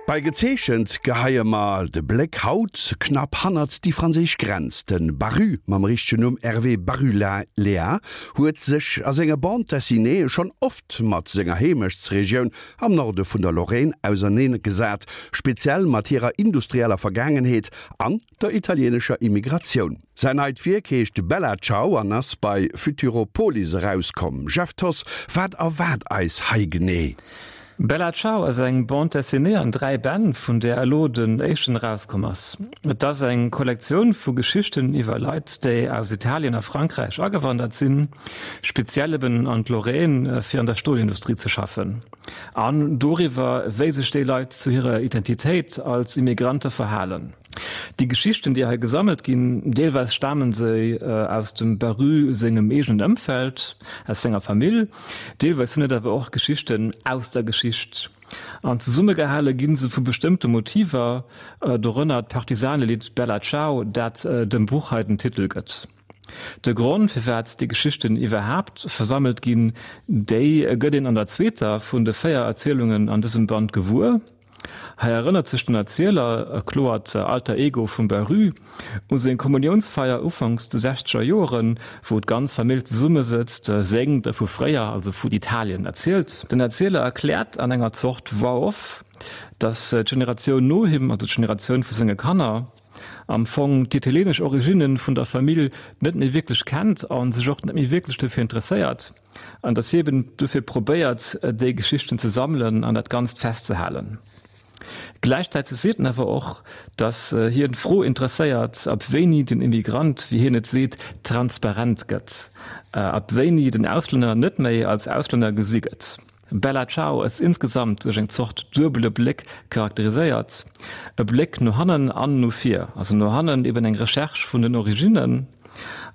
Bei Gezeechent geheie mer de Bléck haut knapp hannert déi franséisch Grenz. De Baru, mam richtegen Numm Hervé Barulea, huet sech a senge Bande dessinéeë schonn oft mat senger Heemechtsregioun am Norde vun der Lorraine auserneengesat, speziell mat hirer industrieller Vergaangenheet an der italieenescher Immigratioun. Säin neit Wierk heescht Bella Ciao an ass bei Futuropolis erauskomm. Jeff Thoss, wat erwaart eis hei genee? Bella Ciao ass eng Bande dessinée an 3 Bänn, vun där elo den éischten erauskomm ass. Et ass eng Kollektioun vu Geschichten iwwer Leit, déi aus Italien a Frankräich agewandert sinn, speziell eben an d'Lorraine, fir an der Stolindustrie ze schaffen, an doriwwer, wéi sech déi Leit zu hirer Identitéit als Immigrante verhalen. Déi Geschichten, déi hei gesammelt ginn, deelweis stamen se aus dem Baru sengem eegenen Ëmfeld, aus senger Famill, deelweis sinn et awer och Geschichten aus der Geschicht. An zesummegehale gi se vu bestëmmte Motiver, dorënner d'Partisanelidd Bella Ciao, dat dem Buch hei den Titel gëtt. De Grond, firwat déi Geschichten iwwerhaapt versammelt ginn, déi gëtt een an der zweeter vun de 4 Erzielungen an dësem Band gewuer. Hei erënnert sech den Erzieler, e kloert Alter Ego vum Baru, u seng Kommuniounsfeier ufanks de sechzeger Joeren, wou d'ganz Famill zesummesëtzt, séngt a vu fréier, also vun Italien, erzielt. Den Erzieler erkläert an enger Zort Voix off, datt d'Generatioun no him, also d'Generatioun vu senge Kanner, am Fong d'italieenesch Originne vun der Famill net méi wierklech kennt a sech och net méi wierklech dofir interesséiert. An dass hie eben dofir probéiert, déi Geschichten ze sammelen an dat Ganzt festzehalen. Gläichzäiteg seet en awer och, dass hien d'Fro interesséiert, ab wéini den Immigrant, wéi hien et seet, transparent gëtt, ab wéini den Auslänner net méi als Auslänner gesi gëtt. Bella Ciao ass insgesamt duerch eng Zort duebele Bléck charakteriséiert, e Bléck no hannen an no vir, also no hannen eben eng Recherche vun den Originnen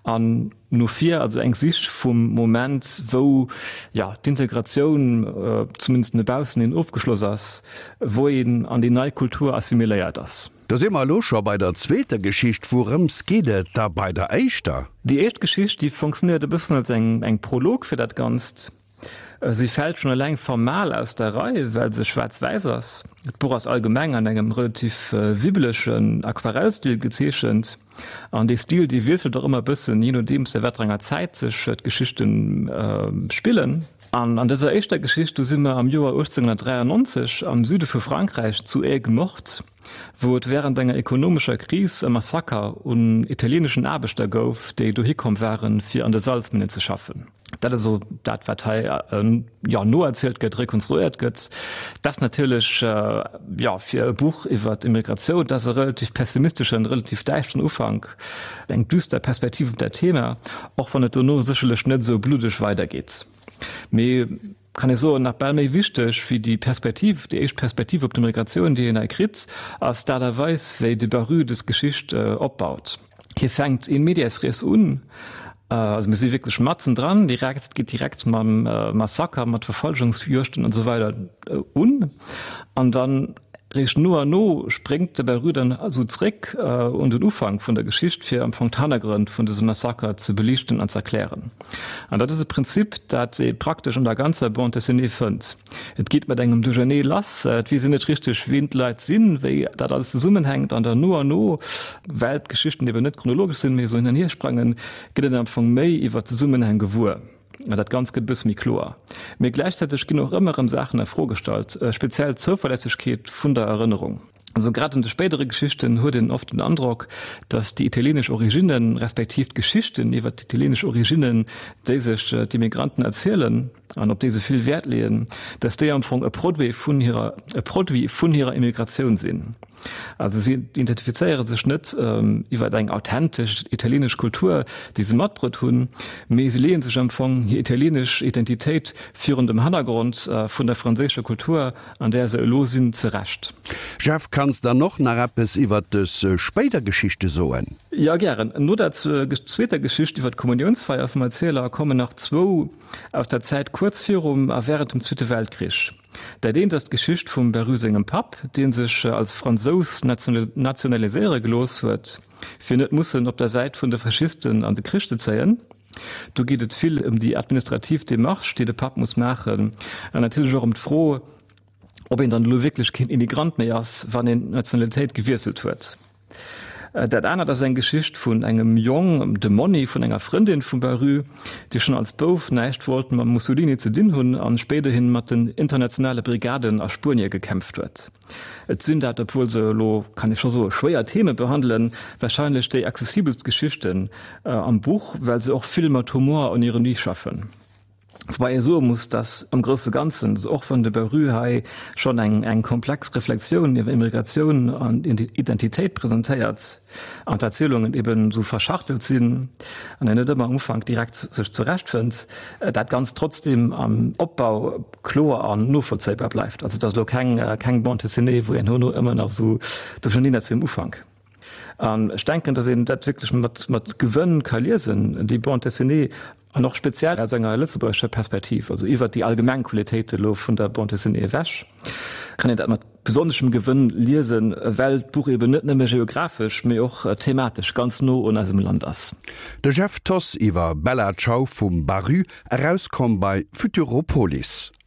an no vir, also eng Sich vum Moment, wou, jo, d'Integratioun, zumindest no baussen hin, ofgeschloss ass, wou een an déi nei Kultur assimiléiert ass. Da si mer elo scho bei der zweeter Geschicht. Wourëms geet et da bei der éischter? Déi éischt Geschicht, déi fonctionnéiert e bëssen als eng Prolog fir dat Ganzt. Si fält schonn eleng formal aus der Rei, well se schwaarz-wäiss ass. D'Buch ass allgemeng an engem relativ wibbelegen Aquarellstil gezeechent. An dee Stil, dee wiesselt och ëmmer e bëssen, jee nodeems a wat fir enger Zäit sech d'Geschichte spillen. An an dëser éischter Geschicht, do si mer am Joer 1893 am Süde vu Frankräich zu Aigues-Mortes, wou et wärend enger ekonomescher Kris e Massaker un italieeneschen Aarbechter gouf, déi dohi komm waren, fir an de Salzminnen ze schaffen. Dat ass esou dat, wat hei jo noerzielt gëtt, rekonstruéiert gëtt. Dat ass natierlech, jo, fir e Buch iwwer Immigratioun, dat ass e relativ pessimisteschen, relativ däischteren Ufank, eng düster Perspektiv op dat Thema, och wann et dono sécherlech net esou bluddeg weidergeet. Mee kann ee soen, nach bal méi wichteg wéi déi Perspektiv, déi éischt Perspektiv op d'Immigratioun, déi een hei kritt, ass d'Aart a Weis, wéi de Baru dës Geschicht opbaut. Hie fänkt in medias res un, also mir si wierklech matzen dran, direkt, et geet direkt mam Massaker, mat Verfolgungsjuegten an esou weider un, an dann réischt no an no spréngt de Baru dann esou zréck un den Ufank vun der Geschicht, fir am Fong d'Hannergrënn vun dësem Massaker ze beliichten an z'erklären. An dat ass e Prinzip, dat ee praktesch an der ganzer Bande dessinée fënnt. Et geet mat engem Duerchernee lass, et weess een net richteg, wien d'Leit sinn, wéi dat alles zesummenhänkt an dann no an no, well d'Geschichten eben net chronologesch sinn, mee esou hin an hier sprangen, gëtt een am Fong méi iwwer d'Zesummenhäng gewuer an dat Ganzt gëtt e bësse méi kloer. Mee gläichzäiteg ginn och ëmmer erëm Saachen a Fro gestallt, speziell d'Zouverlässegkeet vun der Erënnerung. Also grad an de spéidere Geschichten huet een oft den Androck, datt déi italieenesch Originnen, respektiv d'Geschichten iwwer d'italieenesch Originnen, déi sech d'Immigranten erzielen an op déi se vill Wäert leeën, datt déi am Fong e Produit vun hirer, e Produit vun hirer Immigratioun sinn. Also si identifizéiere sech net iwwer eng authentesch italieenesch Kultur, déi se matbruet hunn, mee se leeë sech am Fong hir italieenesch Identitéit virun dem Hannergrond vun der franséischer Kultur an där se elo sinn, zerecht. Jeff, kanns dann och nach eppes iwwert dës spéider Geschichte soen? Jo, gären. No der zweeter Geschicht iwwer d'Kommuniounsfeier vum Erzieler kommen nach zwou aus der Zäit kuerz virum a wärend dem Zweete Weltkrich. Dat eent ass d'Geschicht vum Baru sengem Papp, dee sech als Fransous nationaliséiere gelooss huet, fir net mussen op der Säit vun de Faschisten an de Krich ze zéien. Do geet et vill ëm déi administrativ Demarche, déi de Papp muss maachen, an natierlech och ëm d'Fro, Ob een dann elo wierklech keen Immigrant méi ass, wann een d'Nationalitéit gewiesselt huet. Dat anert ass eng Geschicht vun engem Jong, dem Monni vun enger Frëndin vum Baru, dee schonn als Bouf näischt wollt mam Mussolini ze dinn hunn an spéiderhin mat den Internationale Brigaden a Spuenie gekämpft huet. Et sinn dat, obwuel se elo, kann ee scho soen, schwéier Theme behandelen, warscheinlech déi accessibelst Geschichten am Buch, well se och vill mat Humor an Ironie schaffen. Woubäi ee soe muss, datt am grousse Ganzen, och wann de Baru hei schonn eng eng komplex Reflexioun iwwer Immigratioun an Identitéit presentéiert an d'Erzielungen eben esou verschachtelt sinn an een net ëmmer am Ufank direkt sech zurechtfënnt, dat Ganzt trotzdeem am Opbau kloer an novollzéibar bleift. Also et ass elo keng keng Bande dessinée, wou een herno ëmmer nach esou duercherneen ass wéi am Ufank. An ech denken, datt een dat wierklech mat mat Gewënn ka liesen, déi Bande dessinée, an och speziell aus enger lëtzebuergescher Perspektiv, also iwwert déi allgemeng Qualitéite elo vun der Bande dessinée ewech, kann een dat mat besonneschem Gewënn liesen, well d'Buch eben net nëmme geographesch, mee och thematesch ganz no un eisem Land ass. De Jeff Thoss iwwer Bella Ciao vum Baru, erauskomm bei Futuropolis.